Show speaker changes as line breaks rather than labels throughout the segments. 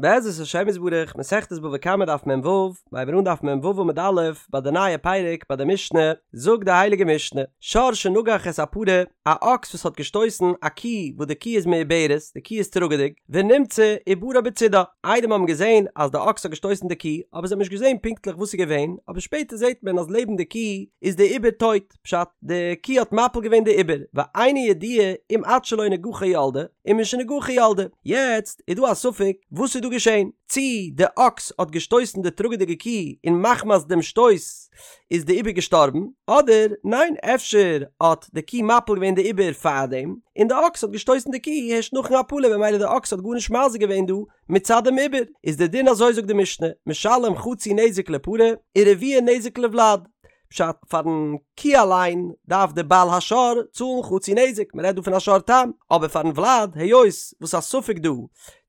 בעזרת השם יתברך, מסכת בבא קמא דף מ"ו, מ'הייבן אן דף מ"ו עמוד א', ביי די נייע פרק ביי די משנה, זאגט די הייליגע משנה, שור שנגח את הפרה, א אקס וואס האט געשטויסן א קי וואס די קי איז מעוברת, די קי איז טראגעדיג, ונמצא עוברה בצידה, עדים האבן געזען אז די אקס האט געשטויסן די קי, אבער זיי האבן נישט געזען פונקטליך וואס איז געווען, אבער שפעטער זעט מען אז לעבן די קי איז די עובר טויט. פשט, די קי האט מפיל געווען די עובר, ואינו ידוע אם עד שלא נגחה ילדה, אם משנגחה ילדה. יעצט איז דא א ספק וואס איז דא געשען, צי די אקס האט געשטויסן די טראגעדיגע קי און מחמת דעם שטויס איז די עובר געשטארבן, אדער ניין אפשר האט די קי מפיל געווען די עובר פארדעם, און די אקס האט געשטויסן די קי הערשט נאכן הפלה ממילא די אקס האט גארנישט מזיק געווען דא מצד דעם עובר, איז די דין אזוי זאגט די משנה, משלם חצי נזק לפרה, ורביע נזק לוולד. פשט, פארן קי אליין דארף דער בעל השור צאלן חצי נזק, מען רעדט דא פון א שור תם, אבער פארן ולד, היות וואס א ספק דא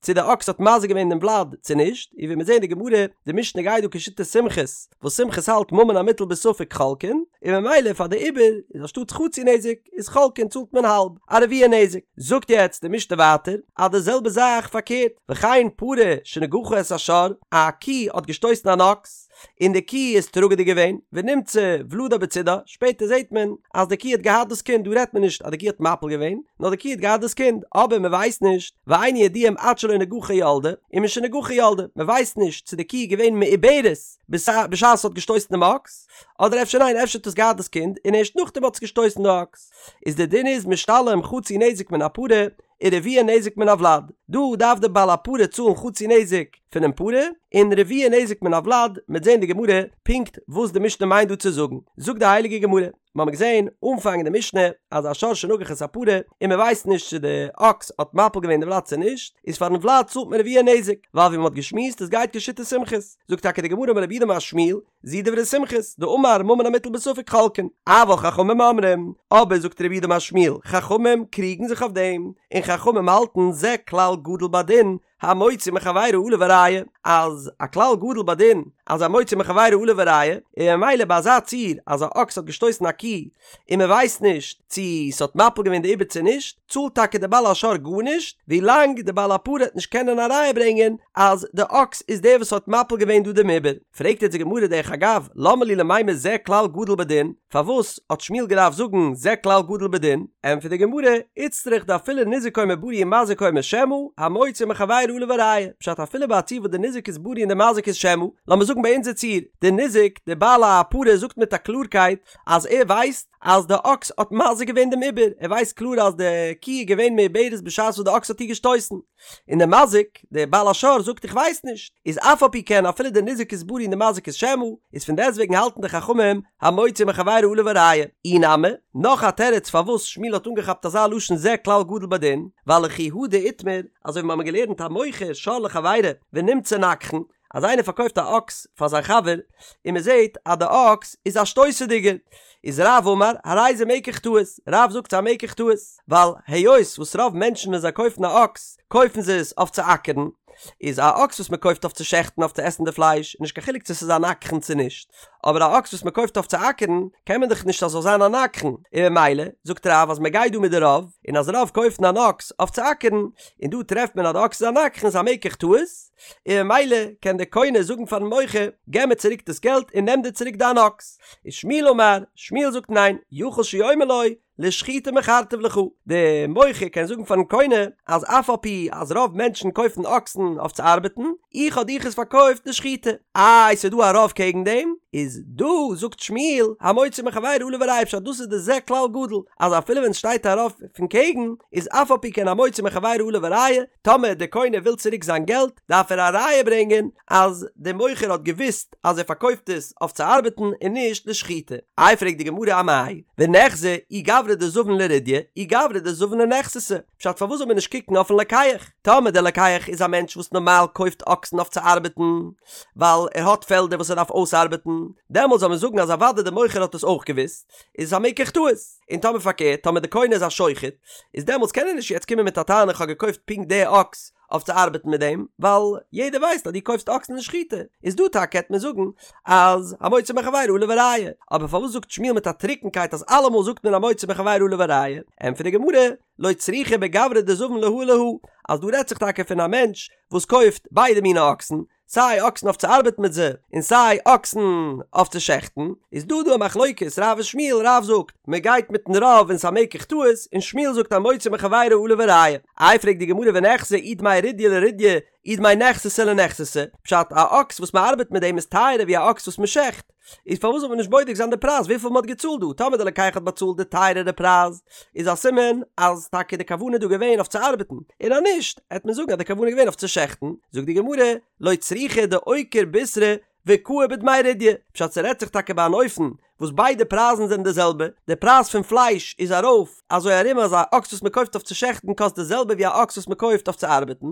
צו די אקס האט מזיק געווען דעם ולד צו נישט, און ווי מיר זעהן די גמרא, די משנה גייט דא כשיטת סומכוס, וואס סומכוס האלט ממון המוטל בספק חולקין, און ממילא פאר די עובר איז אנשטאטס חצי נזק איז חולקין צאלט מען האלב, א רביע נזק. זאגט יעצט די משנה ווייטער אז די זעלבע זאך פארקערט, וכן פרה שנגחה את השור, א קי האט געשטויסן אן אקס, און די קי איז טראגעדיג געווען, ונמצא ולדה בצידה, שפעטער זעט מען אז די קי האט געהאט דאס קינד, דא רעדט מען נישט אז די קי האט מפיל געווען, נאר די קי האט געהאט דאס קינד, אבער מען ווייסט נישט, ואינו ידוע אם עד שלא נגחה ילדה, אם משנגחה ילדה, מען ווייסט נישט צו די קי איז געווען מעוברת בשעת עס האט געשטויסן דעם אקס, אדער אפשר ניין אפשר האט עס געהאט דאס קינד און ערשט נאכדעם האט עס געשטויסן די אקס, איז די דין איז משתלם חצי נזק מן הפרה, ורביע נזק מן הוולד, דא דארף די בעל הפרה צאלן חצי נזק פונעם פרה, און רביע נזק מן הוולד, מ'עט זען די גמרא פונקט וואס די משנה מיינט דא צו זאגן, זאגט די הייליגע גמרא, מיר האבן געזען אנפאנג אין די משנה אז א שור שנגח את הפרה און מען ווייסט נישט צו די אקס האט מפיל געווען די ולד צו נישט, איז פארן ולד צאלט מען רביע נזק, ווייל ווי מען האט געשמועסט עס גייט כשיטת סומכוס, זאגט טאקע די גמרא אמר רב יהודה אמר שמואל, זו דברי סומכוס, דאמר ממון המוטל בספק חולקין, אבל חכמים אומרים, אבער זאגט רב יהודה אמר שמואל, חכמים קריגן זיך אויף דעם, און חכמים האלטן זה כלל גדול בדין, המוציא מחבירו עליו הראיה, אז א כלל גדול בדין אז המוציא מחבירו עליו הראיה, און ממילא ביי אזא ציור אז א אקס האט געשטויסן א קי און מען ווייסט נישט צו ס'האט מפיל געווען די עובר צו נישט, צאלט טאקע די בעל השור גארנישט, ווילאנג די בעל הפרה העט נישט קענען א ראיה ברענגען אז די אקס איז דער וואס האט מפיל געווען דא דעם עובר. פרעגט יעצט די גמרא דרך אגב, למה לי למימר זה כלל גדול בדין, פארוואס האט שמואל געדארפט זאגן זה כלל גדול בדין? ענטפערט די גמרא, איצטריך דאפילו ניזק אומר בריא ומזיק אומר שמא, המוציא מחבירו עליו הראיה, פשט אפילו ביי א ציור וואס די ניזק איז בריא און די מזיק איז שמא, לאמיר זאגן ביי אונזער ציור, די ניזק, די בעל הפרה זאגט מיט א קלארקייט אז ער ווייסט אז די אקס האט מזיק געווען דעם עובר, ער ווייסט קלאר אז די קי איז געווען מעוברת בשעת וואס די אקס האט איר געשטויסן. און דער מזיק, דער בעל השור זאגט איך ווייס נישט, איז אף על פי כן אפילו דער ניזק איז בריא און דער מזיק איז שמא, איז פון דעסטוועגן האלטן די חכמים המוציא מחבירו עליו הראיה. אי נמי, נאך א תירוץ פארוואס שמואל האט אנגעכאפט אזא לשון זה כלל גדול בדין, ווייל לכי הא דאיתמר, אזוי ווי מיר האבן געלערנט המוכר שור לחבירו ונמצא נגחן, אז איינער פארקויפט א אקס פאר זיין חבר און מען זעט אז די אקס איז א שטויסעדיגער, איז רב אמר הרי זה מקח טעות, רב זאגט ס'איז א מקח טעות, ווייל היות וואס רוב מענטשן ווען זיי קויפן א אקס קויפן זיי עס אויף צו אקערן, איז א אקס וואס מען קויפט אויף צו שעכטן אויף צו עסן די פלייש איז נישט קיין חילוק צו ס'איז א נגחן צו נישט, אבער א אקס וואס מען קויפט אויף צו אקערן קען מען דאך נישט אז ס'זאל זיין א נגחן, און ממילא זאגט רב אז מען גייט דא מיט די רוב, און אז רוב קויפן אן אקס אויף צו אקערן, און דא טרעפט מען אז די אקס איז א נגחן איז א מקח טעות. און ממילא קען דער קונה זאגן פארן מוכר, געב מיר צוריק דאס געלט און נעם דיר צוריק דיין אקס. ושמואל אמר, שמואל זאגט ניין, יכול שיאמר לו, לשחיטה מכרתיו לך, דער מוכר קען זאגן פארן קונה, אז אף על פי אז רוב מענטשן קויפן אקסן אויף צו ארבעטן, איך האב דיך עס פארקויפט לשחיטה. איי ס'איז דא א רוב קעגן דעם? איז דא זאגט שמואל, המוציא מחבירו עליו הראיה פשט דאס איז די זה כלל גדול, אז אפילו ווען ס'שטייט א רוב פון קעגן, איז אף על פי כן המוציא מחבירו עליו הראיה, טאמער דער קונה וויל צוריק זיין געלט, דארף ער א ראיה ברענגען אז דער מוכר האט געוואוסט אז ער פארקויפט עס אויף צו ארבעטן און נישט לשחיטה. איי פרעגט די גמרא אמאי ונחזי אי גברא דזבין לרדיא אי גברא דזבין לנכסתא, פשט פארוואס זאל מען נישט קוקן אויפן לוקח? טאמער דער לוקח איז א מענטש וואס נארמאל קויפט אקסן אויף צו ארבעטן ווייל ער האט פעלדער וואס ער דארף אויסארבעטן, דעמאלט זאל מען זאגן אז אוודאי דער מוכר האט עס אויך געוואוסט, איז עס א מקח טעות. און טאמער פארקערט, טאמער דער קונה איז א שוחט, איז דעמאלטס קען ער נישט יעצט קומען מיט א טענה איך האב געקויפט פונקט די אקס. אויף צו ארבעטן מיט דעם, ווייל יעדער ווייסט אז דו קויפסט אקסן לשחיטה, איז דא טאקע העט מען זאגן אז המוציא מחבירו עליו הראיה, אבער פארוואס זאגט שמואל מיט א טרוקנקייט אז אלעמאל זאגט מען המוציא מחבירו עליו הראיה? ענטפערט די גמרא, לא צריכא בגברא דזבין להא ולהא, אז דא רעדט זיך טאקע פון א מענטש וואס קויפט ביידע מיני אקסן, סיי אקסן אויף צו ארבעטן מיט זיי, און סיי אקסן אויף צו שעכטן, איז דא דא א מחלוקת רב און שמואל, רב זאגט מען גייט מיטן רוב און ס'א מקח טעות, און שמואל זאגט המוציא מחבירו עליו הראיה. איי פרעגט די גמרא וניחזי אי דמי רידיא לרידיא אי דמי נכסתא לנכסתא, פשט א אקס וואס מען ארבעט מיט דעם איז טייערער ווי א אקס וואס מען שעכט, איז פארוואס זאל מען נישט בודק זיין די פרייז וויפיל מען האט געצאלט דא, טאמער די לוקח האט באצאלט די טייערערע פרייז איז א סימן אז טאקע די כוונה איז דא געווען אויף צו ארבעטן, און אז נישט העט מען זאגן אז די כוונה איז געווען אויף צו שעכטן, זאגט די גמרא, לא צריכא דאוקיר בישרא וקאי בדמי רידיא, פשט ס'רעדט זיך טאקע ביי אן אופן וואס ביידע פרייזן זענען די זעלבע, די פרייז פון פלייש איז ארויף אזוי ארום אז א אקס וואס מען קויפט אויף צו שעכטן קאסט די זעלבע ווי א אקס וואס מען קויפט אויף צו ארבעטן,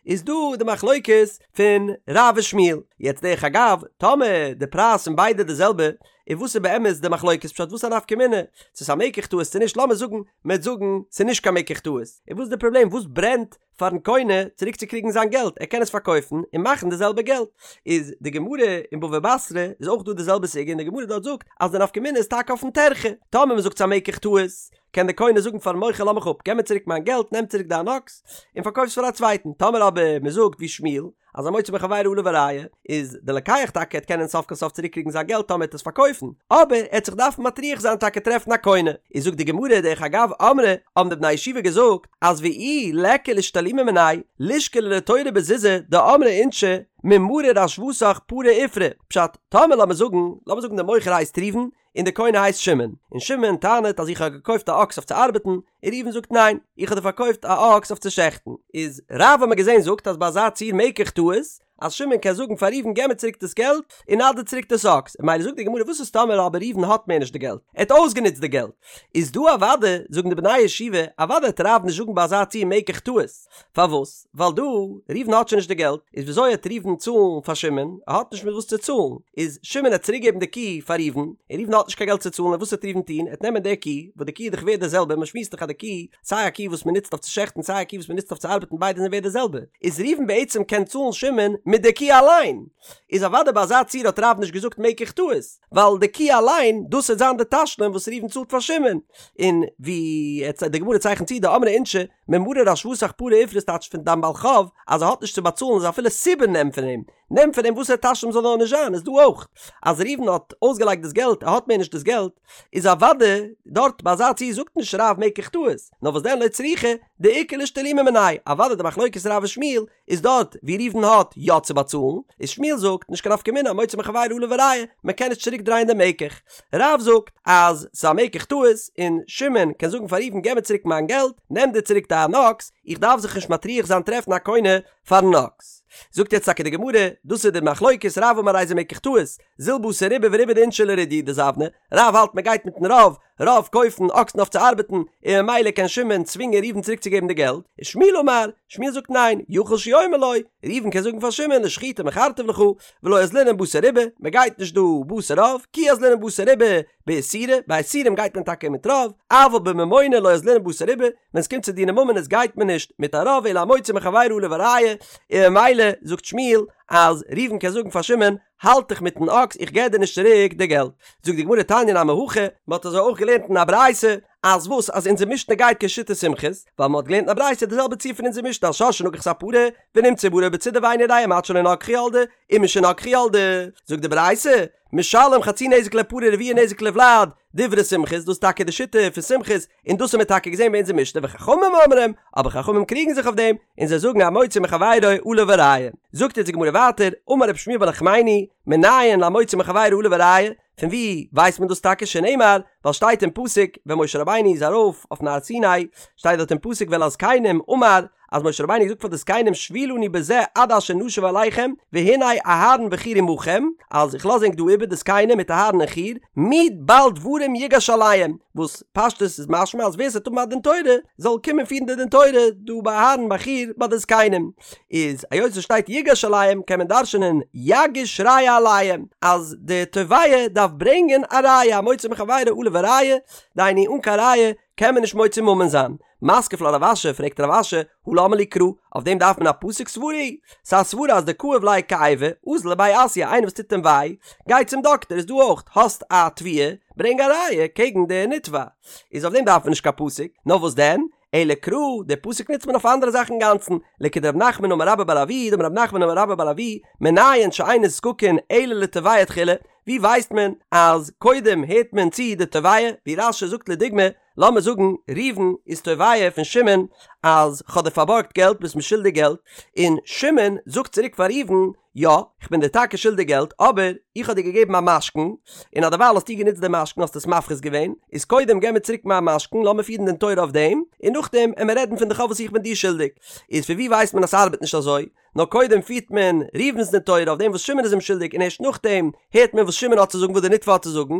איז דא די מחלוקת פון רב ושמואל, יעצט דרך אגב, טאמער די פרייז פון ביידע די זעלבע, איז וואס איז באמת די מחלוקת פשט וואס א נפקא מינה צו ס'איז א מקח טעות צו נישט לאמיר זאגן מ'עט זאגן ס'איז נישט קיין מקח טעות, איז וואס איז די פראבלעם וואס ברענט פארן קונה צוריק צו קריגן זיין געלט ער קען עס פארקויפן און מאכן די זעלבע געלט, איז די גמרא אין בבא בתרא איז אויך דא די זעלבע סוגיא און די גמרא דארט זאגט אז די נפקא מינה איז טאקע אויפן טרחה, טאמער מ'זאגט ס'איז א מקח טעות קען די קונה זאגן פארן מוכר לאז מיך אפ געב מיר צוריק מיין געלט נעם צוריק דיין אקס און פארקויף עס פאר א צווייטן, טאמער אבער מ'זאגט ווי שמואל אז המוציא מחבירו עליו הראיה איז די לוקח טאקע העט קענען סוף כל סוף צוריק קריגן זיין געלט טאמער ער העט עס פארקויפן, אבער ער העט זיך דארפן מטריח זיין טאקע טרעפן א קונה, איז זאגט די גמרא דרך אגב אמרי האבן די בני הישיבה געזאגט אז ואי ליכא לאשתלומי מיניה לישקליה לתורא בזוזי דאמרי אינשי ממריר השוותך פרע עפרא, פשט, טאמער לאמיר זאגן, לאמיר זאגן די מוכר הייסט ראובן, און די קונה הייסט שמעון, און שמעון טענה'ט אז איך האב געקויפט א אקס אויף צו ארבעטן, און ראובן זאגט ניין, איך האב דיר פארקויפט א אקס אויף צו שעכטן, איז רב האט מען געזען זאגט אז ביי אזא ציור מקח טעות, אז שמעון קען זאגן פאר ראובן געב מיר צוריק דאס געלט, און נא דיר צוריק דאס אקס, און ממילא זאגט די גמרא וואס איז טאמער אבער ראובן האט מער נישט די געלט, ער האט אויסגענוצט די געלט, איז דא אוודאי, זאגן די בני הישיבה, אוודאי וועט רב נישט זאגן ביי אזא ציור מקח טעות, פארוואס? ווייל דא, ראובן האט שוין נישט די געלט, איז וויאזוי העט ראובן צאלן פאר שמעון? ער האט נישט מיט וואס צו צאלן, איז שמעון העט צוריק געבן די קי פאר ראובן, און ראובן האט נישט קיין געלט צו צאלן, און וואס העט ראובן טון? ער העט נעמען די קי, וואס די קי איז דאך ווערט די זעלבע, מען שמועסט דאך אז די קי, סיי א קי וואס מען נוצט אויף צו שעכטן סיי א קי וואס מען נוצט אויף צו ארבעטן ביידע זענען ווערט די זעלבע, איז ראובן בעצם קען צאלן שמעון מיט די קי אליין, איז אוודאי ביי אזא ציור האט רב נישט געזאגט מקח טעות, ווייל די קי אליין, דאס העט זיין די תשלום וואס ראובן צאלט פאר שמעון, און ווי די גמרא צייכנט צו דאמרי אינשי, ממריר השוותך פרע עפרא ס'טייטש פון דיין בעל חוב אז ער האט נישט צו באצאלן איז אפילו סובין נעם פון אים, נעם פון אים וואסער תשלום זאל נאר נישט זיין איז דא אויך אז ראובן האט אויסגעלייגט דאס געלט ער האט מער נישט דאס געלט איז אוודאי דארט ביי אזא ציור זאגט נישט רב מקח טעות נאר וואס דען לא צריכא דאיכא לאשתלומי מיניה אוודאי די מחלוקת רב ושמואל איז דארט ווי ראובן האט יא צו באצאלן, איז שמואל זאגט, נישט קיין נפקא מינה המוציא מחבירו עליו הראיה, מען קען נישט צוריק דרייען דעם מקח. רב זאגט אז ס'איז א מקח טעות, און שמעון קען זאגן פאר ראובן געב מיר צוריק מיין געלט, נעם דיר צוריק דיין אקס, איך דארף זיך נישט מטריח זיין טרעפן א קונה פארן אקס. זאגט יעצט טאקע די גמרא, דאס איז די מחלוקת, רב אמר הרי זה מקח טעות, זיל בתר רובא ורובא דאינשי לרידיא דזבני, רב האלט מען גייט מיטן רוב, רוב קויפן אקסן אויף צו ארבעטן, און ממילא קען שמעון צווינגען ראובן צוריק צו געבן די געלט, ושמואל אמר, שמואל זאגט ניין, יכול שיאמר לו, ראובן קען זאגן פאר שמעון לשחיטה מכרתיו לך, ולא אזלינן בתר רובא, מען גייט נישט דא בתר רוב, כי אזלינן בתר רובא באיסורא, ביי איסורים גייט מען טאקע מיט רוב, אבל בממונא לא אזלינן בתר רובא, ווען עס קומט צו דיני ממונות גייט מען נישט מיט א רוב אלא המוציא מחבירו עליו הראיה, און ממילא זאגט שמואל אז ראובן קען זאגן פאר שמעון, האלט דיך מיטן אקס, איך געב דיר נישט צוריק די געלט. זאגט די גמרא תניא נמי הכי, מען האט אזוי אויך געלערנט אין א ברייתא, אז וואס אז אונזער משנה גייט כשיטת סומכוס, ווייל מען האט געלערנט אין א ברייתא די זעלבע ציור פון אונזער משנה אז שור שנגח את הפרה ונמצא עוברה בצידה ואינו יודע אם עד שלא נגחה ילדה אם משנגחה ילדה, זאגט די ברייתא, משלם חצי נזק לפרה רביע נזק לוולד, דברי סומכוס, דאס איז טאקע די שיטה פון סומכוס, און דאס האבן מיר טאקע געזען ביי אונזער משנה וחכמים אומרים, אבער חכמים קריגן זיך אויף דעם, און זיי זאגן המוציא מחבירו עליו הראיה. זאגט אונז די גמרא ווייטער, אמר רב שמואל בר נחמני, מנין להמוציא מחבירו עליו הראיה, פון וואו ווייסט מען דאס טאקע שנאמר, ווייל שטייט אין פסוק ווען משה רבינו איז ארויף אויפן הר סיני, שטייט דארט אין פסוק ואל הזקנים אמר, אז משה רבינו האט געזאגט פאר די זקנים שבו לנו בזה עד אשר נשוב אליכם והנה אהרן וחור עמכם, אז איך לאז ענק דא איבער די זקנים מיט אהרן און חור, מי בעל דברים יגש אליהם, וואס פשטות איז משמע אז ווער ס'וועט האבן א דין תורה זאל קומען פירן די דין תורה דא ביי אהרן ביי חור ביי די זקנים, איז היות עס שטייט יגש אליהם קען מען דרש'נען יגיש ראיה עליהם אז די תובע דארף ברענגען א ראיה המוציא מחבירו עליו הראיה, דהיינו אן קיין ראיה. קען מען נישט מוציא ממון זיין. מתקיף לה רב אשי, פרעגט רב אשי, הא למה לי קרא, אויף דעם דארף מען א פסוק סברא היא? ס'איז א סברא אז דכאיב ליה כאיבא, אזל לבי אסיא, איינער וואס טוט אים וויי, גיי צום דאקטער, איז דא אויך, האסט א תביעה, ברענג א ראיה קעגן די נתבע. איז אויף דעם דארף מען נישט קיין פסוק, נאר וואס דען? אלא קרא, די פסוק נוצט מען אויף אנדערע זאכן אינגאנצן, לכדרב נחמן אמר רבה בר אבוה, דאמר רב נחמן אמר רבה בר אבוה, מנין שאין נזקקין אלא לתובע תחילה, ווי ווייסט מען אז קודם הערט מען צו די תובע, ווי רש"י זאגט לדוגמא, לאמיר זאגן ראובן איז תובע פון שמעון אז כ'האב דיר פארבארגט געלט ביסט מיר שולדיג געלט, און שמעון זאגט צוריק פאר ראובן, יא, כ'בין דיר טאקע שולדיג געלט, אבער איך האב דיר געגעבן א משכון, און אדערווייל האסטו גענוצט די משכון האסט עס מפחית געווען, איז קודם געב מיר צוריק מיין משכון לאמיר פירן דין תורה אויף דעם, און נאכדעם עמיר רעדן פון די חוב וואס איך בין דיר שולדיג. איז פון ווי ווייסט מען אז ס'ארבעט נישט אזוי? נאר קודם פירט מען ראובן'ס דין תורה אויף דעם וואס שמעון איז אים שולדיג און ערשט נאכדעם הערט מען וואס שמעון האט צו זאגן וואס די נתבע האט צו זאגן,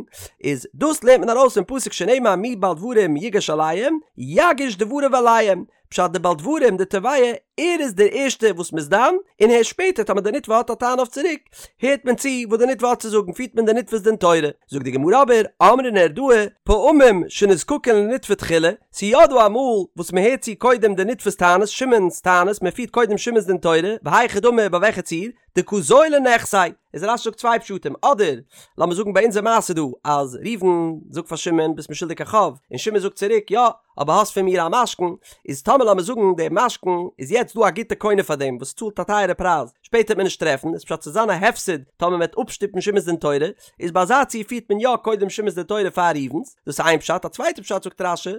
איז דאס לערנט מען ארויס פון פסוק שנאמר מי בעל דברים יגש אליהם יגיש דבריו אליהם, פשט די בעל דברים די תובע ער איז דער ערשטער וואס מ'איז דן, און הערשט שפעטער טאמער די נתבע האט א טענה אויף צוריק הערט מען צו וואס די נתבע האט צו זאגן פירט מען די נתבע'ס דין תורה, זאגט די גמרא אבער אמרי נהרדעא פעמים שנזקקין לנתבע תחילה, ס'איז יא דא אמאל וואס מ'הערט צו קודם די נתבע'ס טענות, שמעון'ס טענות, מ'פירט קודם שמעון'ס דין תורה, והיכי דמי ביי וועלכע ציור? דקא זילי נכסיה, איז רש"י זאגט צוויי פשטים, אדער לאמיר זאגן ביי אונזער מעשה דא אז ראובן זאגט פאר שמעון ביסט מיר שולדיג א חוב, און שמעון זאגט צוריק יא, אבער האסט פון מיר א משכון, איז טאמער לאמיר זאגן דער משכון איז יעצט דא א גוטע קונה פאר דעם וואס צאלט א טייערע פרייז, שפעטער וועט מען נישט טרעפן, איז פשט ס'וועט זיין א הפסד טאמער מען וועט אפשטופן שמעון'ס דין תורה, איז ביי אזא ציור פירט מען יא קודם שמעון'ס דין תורה פאר ראובן'ס, דאס איז איין פשט, א צווייטע פשט זאגט רש"י,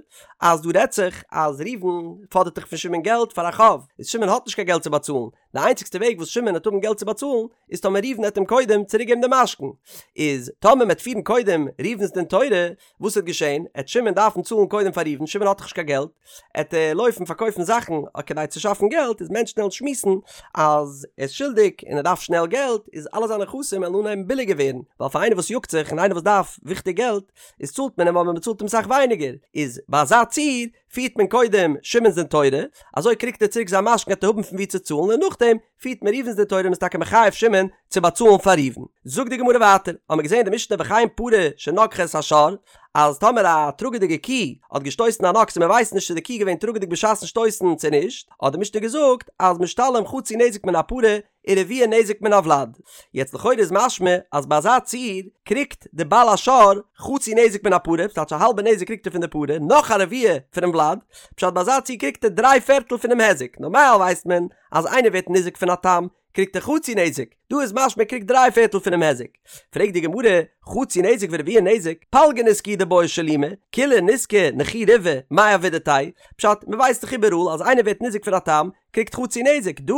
אז דא רעדט זיך אז ראובן פאדערט דאך פון שמעון געלט פאר א חוב, איז שמעון האט נישט קיין געלט צו באצאלן, די איינציגסטע וועג וואס שמעון וועט האבן געלט צו באצאלן איז טאמער ראובן וועט אים קודם צוריק געבן די משכון, איז טאמער מען וועט פירן קודם ראובן'ס דין תורה, וואס וועט געשען? עט שמעון דארפן צאלן קודם פאר ראובן, שמעון האט דאך נישט קיין געלט, עט ער לויפן פארקויפן זאכן כדי צו שאפן געלט, איז מענטשן וועלן שמועסן אז ער איז שולדיג און ער דארף שנעל געלט, איז אלע זיינע נכסים וועלן אנהייבן ביליגער ווערן, ווייל פאר איינער וואס יאגט זיך און איינער וואס דארף וויכטיג געלט, איז צאלט מען אים אבער מען צאלט אים סאך ווייניגער, איז ביי אזא ציור פירט מען קודם שמעון'ס דין תורה, אזוי קריגט ער צוריק זיין משכון עט ער האבן פון וואו צו צאלן און נאכדעם פירט מען ראובן'ס דין תורה און מ'איז טאקע מחייב שמעון צו באצאלן פאר ראובן. זאגט די גמרא ווייטער, האמיר געזען אין די משנה וכן פרה שנגחה את השור, אז טאמער א טראגעדיגע קי האט געשטויסן אן אקס און מ'ווייסט נישט צו די קי איז געווען טראגעדיג בשעת'ן שטויסן צו נישט, האט די משנה געזאגט אז משתלם חצי נזק מן הפרה ורביע נזק מן הוולד. יעצט לכאורה איז משמע אז ביי אזא ציור קריגט די בעל השור חצי נזק מן הפרה, ס'טייטש א האלבע נזק קריגט ער פון די פרה, נאך א רביע פונעם ולד, פשט ביי אזא ציור קריגט ער דריי פערטל פונעם היזק, נארמאל ווייסט מען אז איינער ווערט ניזוק פון א תם קריגט ער חצי נזק, דא איז משמע ער קריגט דריי פערטל פונעם היזק. פרעגט די גמרא, חצי נזק ורביע נזק, פלגא נזקא הוא דבעי שלומי, כוליה נזקא נכי ריבעא, מאי עבידתיה? פשט, מ'ווייסט דאך איבעראל אז איינער ווערט ניזוק פון א תם, קריגט חצי נזק, דא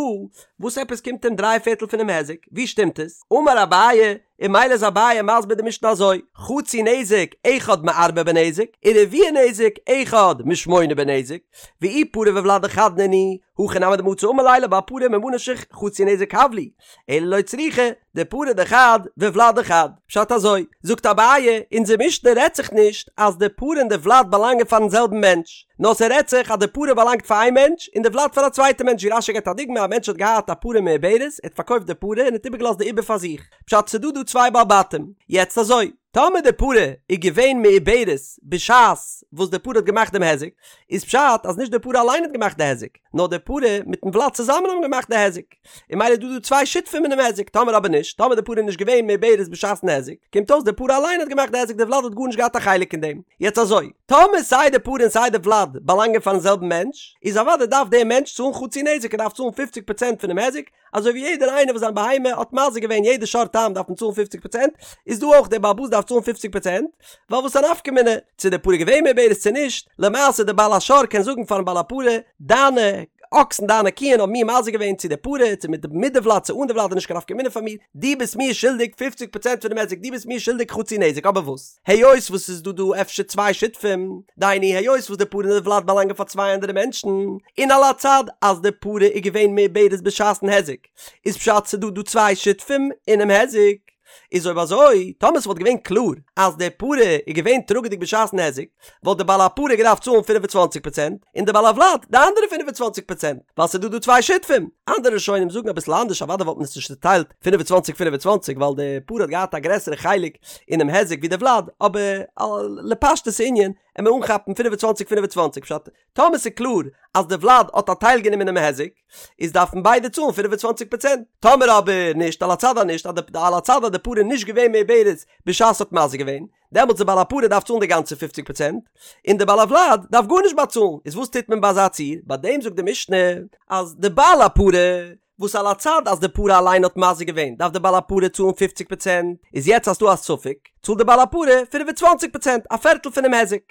וואס עפעס קומט אים דריי פערטל פונעם היזק? ווי שטימט עס? אמר אביי, און ממילא איז אביי מסביר די משנה אזוי, חצי נזק אחד מארבעה בנזק, ורביע נזק אחד משמונה בנזק, ואי פרה וולד דחד נינהו, הכי נמי דמצי אמר ליה לבעל פרה ממה נפשך חצי נזק הב לי, אלא לא צריכא, דפרה דחד וולד דחד. פשט אזוי, זאגט אביי, אונזער משנה רעדט זיך נישט אז די פרה און די ולד באלאנגען פארן זעלבן מענטש, נאר ס'רעדט זיך אז די פרה באלאנגט פאר איין מענטש און די ולד פאר א צווייטע מענטש ווי רש"י געבט א דוגמא א מענטש האט געהאט א פרה מעוברת ער האט פארקויפט די פרה און האט איבערגעלאזט די עובר פאר זיך פשט ס'דא דא צוויי בעל בתים יעצט אזוי טאמער די פרה איז געווען מעוברת בשעת וואס די פרה האט געמאכט דעם היזק איז פשט אז נישט די פרה אליין האט געמאכט די היזק נאר די פרה מיטן ולד צוזאמען האבן געמאכט די היזק. און ממילא איז דא דא צוויי שותפים אינעם היזק, טאמער אבער נישט, טאמער די פרה איז נישט געווען מעוברת בשעת'ן היזק, קומט אויס די פרה אליין האט געמאכט די היזק די ולד האט גארנישט געהאט א חלק אין דעם. יעצט אזוי, טאמער סיי די פרה און סיי די ולד באלאנגען פארן זעלבן מענטש, איז אוודאי דארף דער מענטש צאלן חצי נזק, ער דארף צאלן פופציג פראצענט פונעם היזק, אזוי ווי יעדער איינער וואס זיין בהמה האט מזיק געווען יעדע שור תם דארף מען צאלן פופציג פראצענט, איז דא אויך דער בעל הבית דארף צאלן פופציג פראצענט, ווייל וואס א נפקא מינה צו די פרה איז געווען מעוברת צו נישט, למעשה דער בעל השור קען זאגן פארן בעל הפרה, דיינע אקסן דיינע קיען האבן מיר מזיק געווען צו די פרה, צו מיט מיט די ולד צו אן די ולד איז נישט קיין נפקא מינה פאר מיר, דו ביסט מיר שולדיג פופציג פראצענט פונעם היזק, דו ביסט מיר שולדיג חצי נזק, אבער וואס היות וואס ס'איז דא דא אפשר צוויי שותפים, דהיינו היות וואס די פרה און די ולד באלאנגען פאר צוויי אנדערע מענטשן, און על הצד אז די פרה איז געווען מעוברת בשעת'ן היזק, איז פשט ס'דא דא צוויי שותפים אינעם היזק. איז אויב אזוי, טאמער ס'וואלט געווען קלאר אז די פרה איז געווען טראגעדיג בשעת'ן היזק, וואלט די בעל הפרה געדארפט צאלן פֿינף און צוואַנציק פראצענט, און די בעל הוולד די אנדערע 25 פראצענט, ווייל ס'איז דא דא צוויי שותפים. אנדערע ראשונים זאגן אביסל אנדערש, אוודאי וואלט מען עס נישט צוטיילט 25 25 ווייל די פרה האט געהאט א גרעסערע חלק אינעם היזק ווי די ולד, אבער לפשטות הענין. עמיר אנכאפן 25 25 פשט טאמער ס'איז קלאר אז די ולד האט א טייל גענומען אינעם היזק איז דארפן ביידע צאלן 25 פראצענט טאמער אבער נישט על הצד אז נישט אז די על הצד אז די פרה איז נישט געווען מעוברת בשעת ס'האט מזיק געווען דעמאלטס די בעל הפרה דארף צאלן די גאנצע פופציג פראצענט און די בעל הוולד דארף גארנישט באצאלן איז וואס טוט מען ביי אזא ציור ביי דעם זאגט די משנה אז די בעל הפרה וואס על הצד אז די פרה אליין האט מזיק געווען דארף די בעל הפרה צאלן פופציג פראצענט, איז יעצט אז ס'דא א ספק צאלט די בעל הפרה 25 פראצענט, א פערטל פונעם היזק.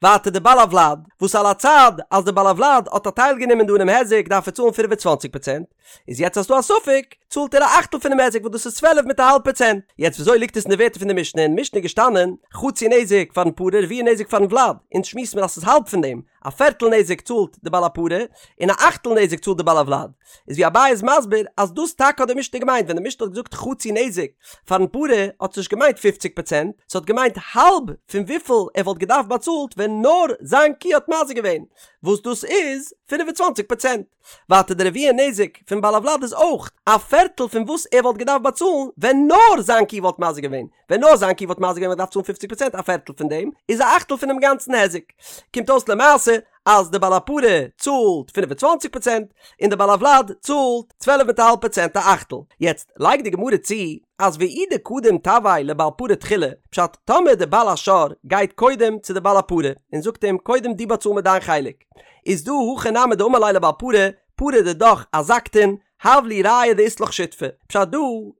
ווייטער די בעל הוולד, וואס על הצד אז די בעל הוולד האט א טייל גענומען דא אינעם היזק דארף ער צאלן 25 פראצענט, איז יעצט אז ס'דא א ספק צאלט ער א אכטל פונעם היזק וואס דאס איז צוועלף מיט א האלב פראצענט. יעצט וויאזוי ליגט עס אין די ווערטער פון די משנה? אין משנה איז געשטאנען חצי נזק פארן פרה רביע נזק פארן ולד, אונז שמועסן מיר אז ס'איז האלב פון דעם, א פערטל נזק צאלט די בעל הפרה, און א אכטל נזק צאלט די בעל הוולד. איז ווי אביי איז מסביר אז דאס טאקע האט די משנה געמיינט, ווען די משנה האט געזאגט חצי נזק פארן פרה האט עס נישט געמיינט פופציג פראצענט, ס'האט געמיינט האלב פון וויפיל ער וואלט געדארפט באצאלט ווען נאר זיין קו האט מזיק געווען, וואס דאס איז 25 פראצענט. ווייטער די רביע נזק פון בעל הוולד איז אויך א פערטל פון וואס ער וואלט געדארפט באצאלן ווען נאר זיין קו וואלט מזיק געווען, ווען נאר זיין קו וואלט מזיק געווען וואלט געדארפט צאלן פופציג פראצענט א פערטל פון דעם איז א אכטל פונעם גאנצן היזק. קומט אויס למעשה אז די בעל הפרה צאלט 25 פראצענט און די בעל הוולד צאלט צוועלף מיט א האלב פראצענט א אכטל. יעצט לייגט די גמרא צו אז ואי דקדים תבעיה לבעל פרה תחילה, פשט טאמער די בעל השור גייט קודם צו די בעל הפרה און זאגט אים קודם דו באצאל מיר דיין חלק, איז דא הכי נמי דאמר ליה לבעל פרה, פרה דידך אזקתן, הב לי ראיה דאית לך שותפא. פשט דא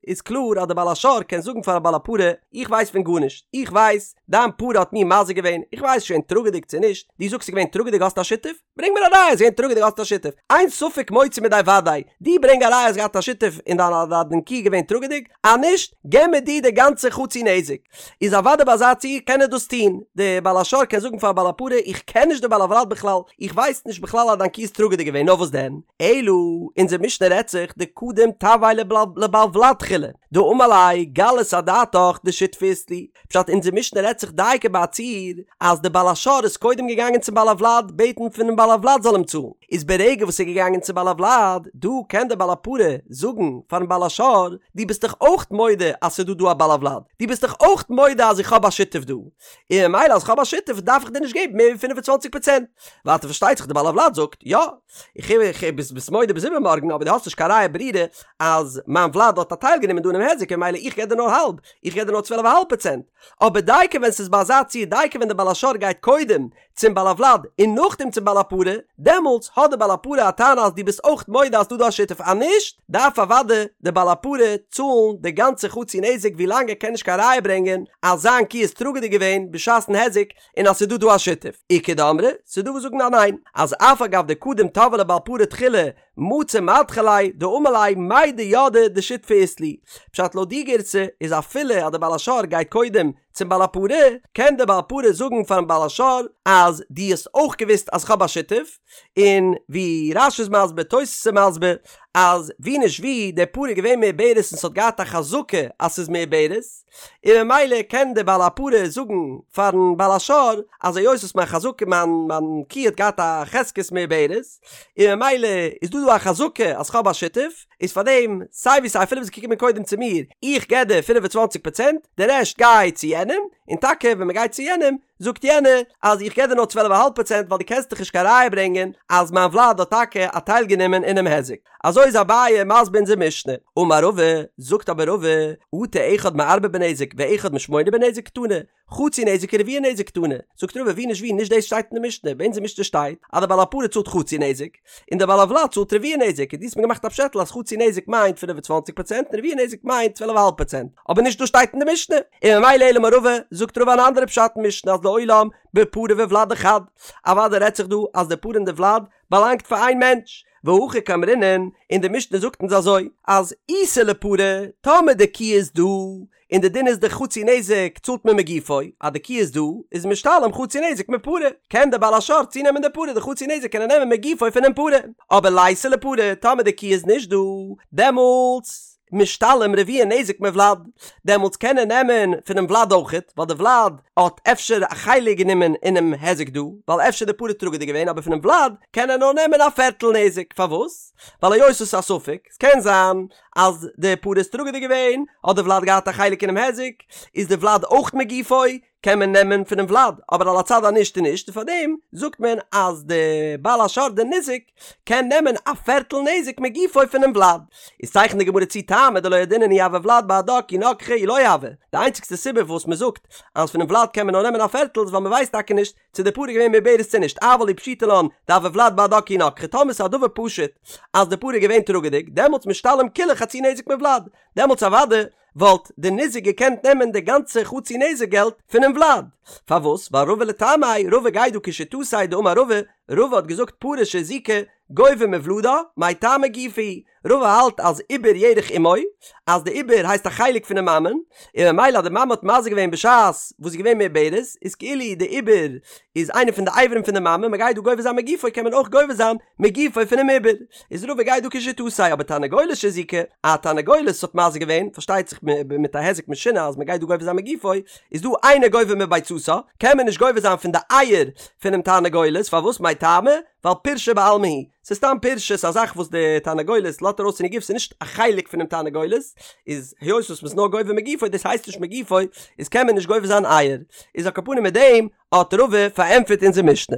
איז קלאר אז די בעל השור קען זאגן פארן בעל הפרה, איך ווייס פון גארנישט, איך ווייס דיין פרה האט מיר מזיק געווען, איך ווייס שוין טראגעדיג צו נישט, דו זאגסט ס'איז געווען טראגעדיג האסט א שותף? ברענג מיר א ראיה ס'איז געווען טראגעדיג האסט א שותף, אין ספק מוציא מידי וודאי, דו ברענג א ראיה האסט געהאט א שותף און דיין דיין קו איז געווען טראגעדיג, אז נישט געב מיר דו די גאנצע חצי נזק. איז אוודאי ביי אזא ציור קען ער דאס טון, די בעל השור קען זאגן פאר בעל הפרה איך קען נישט די בעל הוולד בכלל, איך ווייס נישט בכלל אז דיין קו איז טראגעדיג געווען, נאר וואס דען, אלא אונזער משנה רעדט זיך דקדים תבעיה לבעל ולד תחילה, דאמר ליה גלית אדעתך דשותפא אית לי, פשט אונזער משנה רעדט זיך דייקא ביי א ציור אז די בעל השור איז קודם געגאנגען צום בעל הוולד בעטן פונעם בעל הוולד זאל אים צאלן, איז ברגע וואס ער איז געגאנגען צום בעל הוולד, דא קען דער בעל הפרה זאגן פארן בעל השור, דו ביסט דאך אויך מודה אז ס'איז דא דא א בעל הוולד, דו ביסט דאך אויך מודה אז איך האב א שותף דא, און ממילא אז איך האב א שותף דארף איך דיר נישט געבן מער ווי 25 פראצענט. ווייטער פארשטייט זיך דער בעל הוולד זאגט, יא, איך איך ביסט ביסט מודה ביז איבערמארגן אבער דו האסט נישט קיין ראיה ברורה אז מיין ולד האט א טייל גענומען דא אינעם היזק און ממילא איך געב דיר נאר האלב, איך געב דיר נאר צוועלף א האלב פראצענט. אבער דייקא ווען ס'איז ביי אזא ציור דייקא ווען דער בעל השור גייט קודם צום בעל הוולד און נאכדעם צום בעל הפרה, דעמאלטס האט דער בעל הפרה א טענה אז דו ביסט אויך מודה אז ס'דא דא א שותף אז נישט דארף אוודאי דער בעל הפרה צאלן די גאנצע חצי נזק ווילאנג ער קען נישט קיין ראיה ברענגען אז זיין קו איז טראגעדיג געווען בשעת'ן היזק און אז ס'איז דא דא א שותף. איכא דאמרי, ס'איז דא וואס זאגן אז ניין, אז אף על גב דקדים תבעיה לבעל פרה תחילה מצי מדחי ליה דאמר ליה מידע ידעי דשותפא אית לי. פשט לויט די גירסא איז אפילו אז דער בעל השור גייט קודם צום בעל הפרה, קען דער בעל הפרה זאגן פארן בעל השור אז דו האסט אויך געוואוסט אז כ'האב א שותף, און ווי רש"י איז מסביר, תוס' איז מסביר, אז ווי נישט ווי, די פרה איז געווען מעוברת און ס'האט געהאט א חזקה אז ס'איז מעוברת, און ממילא קען דער בעל הפרה זאגן פארן בעל השור אז היות וואס מיין חזקה מיין מיין קו האט געהאט א חזקת מעוברת, און ממילא איז דא דא א חזקה אז כ'האב א שותף, איז פאר דעם סיי ווי סיי אפילו ביסט געקומען קודם צו מיר, איך געב דיר 25 פראצענט, די רעשט גיי צו יענעם, און טאקע ווען מ'גייט צו יענעם, זאגט יענער אז איך געב דיר נאר צוועלף אהאלב פראצענט ווייל דו קענסט דאך נישט קיין ראיה ברענגען אז מיין ולד האט טאקע א טייל גענומען אינעם היזק. אזוי איז אביי מסביר אונזער משנה. אמר רבא, זאגט אבער רבא, אטו אחד מארבעה בנזק ואחד משמונה בנזק קתני, חצי נזק ורביע נזק קתני. זאגט רבא ווי נישט ווי נישט דאס שטייט אין די משנה, ביי אונזער משנה שטייט אז דער בעל הפרה צאלט חצי נזק, און דער בעל הוולד צאלט רביע נזק, און דו האסט מיר געמאכט א פשעטל אז חצי נזק מיינט 25 פראצענט און רביע נזק מיינט צוועלף אהאלב פראצענט, אבער נישט דאס שטייט אין די משנה, און ממילא אלא אמר רבא, זאגט רבא אן אנדערע פשט אין משנה אז לעולם בפרה וולד דחד, אוודאי רעדט זיך דא אז די פרה און די ולד באלאנגט פאר איין מענטש, והכי קאמרינן, און די משנה זאגט אונז אזוי, אז איתא לפרה, טאמער די קו איז דא, און די דין איז די חצי נזק צאלט מען מגופו, אז די קו איז דא, איז משתלם חצי נזק מפרה, קען די בעל השור צונעמען די פרה, די חצי נזק קען ער נעמען מגופו פונעם פרה, אבער ליתא לפרה, טאמער די קו איז נישט דא, דעמאלטס משתלם רביע נזק מוולד, דעמאלטס קען ער נעמען פונעם ולד אויכעט, ווייל די ולד האט אפשר א חלק גענומען אינעם היזק דא, ווייל אפשר די פרה טראגעדיג געווען, אבער פונעם ולד קען ער נאר נעמען א פערטל נזק, פארוואס? ווייל היות עס איז א ספק, ס'קען זיין אז די פרה איז טראגעדיג געווען, האט די ולד געהאט א חלק אינעם היזק, איז די ולד אויך מגופו, קען מען נעמען פונעם ולד, אבער על הצד אז נישט איז נישט, און פארדעם זאגט מען אז די בעל השור די ניזק קען נעמען א פערטל נזק מגופו פונעם ולד. איז צייכנט די גמרא צו טעמא דלא ידעינן אי הוה ולד בהדה כי נגחה אי לא הוה, די איינציגסטע סיבה וואס מען זאגט אז פונעם ולד קען מען נאר נעמען א פערטל איז ווייל מען ווייסט טאקע נישט צו די פרה איז געווען מעוברת צו נישט, אבל אי פשיטא לן דהוה ולד בהדה כי נגחה, טאמער ס'איז א דבר פשוט אז די פרה איז געווען טראגעדיג, דעמאלטס משתלם כולה חצי נזק מולד, דעמאלטס אוודאי וואלט די ניזק געקענט נעמען די גאנצע חצי נזק געלט פונעם ולד. פארוואס? ווייל רבא לטעמיה, רבא גייט דא כשיטתיה דאמר רבא, רבא האט געזאגט פרה שהזיקה גובה מולדה, מאי טעמא גופה הוא, רבא האלט אז עובר ירך אמו, אז די עובר הייסט א חלק פונעם מאמען, און ממילא אז די מאמע האט מזיק געווען בשעת וואס זי איז געווען מעוברת, איז כאילו די עובר איז איינע פון די אברים פון די מאמע, מען גייט דא גובה זיין מגופו קען מען אויך גובה זיין מגופו פונעם עובר, איז רבא גייט דא כשיטתיה, אבער תרנגולת שהזיקה, א תרנגולת האט מזיק געווען, פארשטייט זיך מיט א היזק משונה אז מען גייט דא גובה זיין מגופו, איז דא אינו גובה מביצתה, קען מען נישט גובה זיין פון די אייער פונעם תרנגולת, פארוואס מאי טעמא? ווייל פירשא בעלמא היא, ס'איז סתם פירשא, ס'איז א זאך וואס די תרנגולת לאזט ארויס פון איר גוף, ס'איז נישט א חלק פונעם תרנגולת, איז היות וואס מ'איז נאר גובה מגופו, דאס הייסט נישט מגופו, איז קען מען נישט גובה זיין אייער, איז על כל פנים מיט דעם האט רבא פארענטפערט אונזער משנה.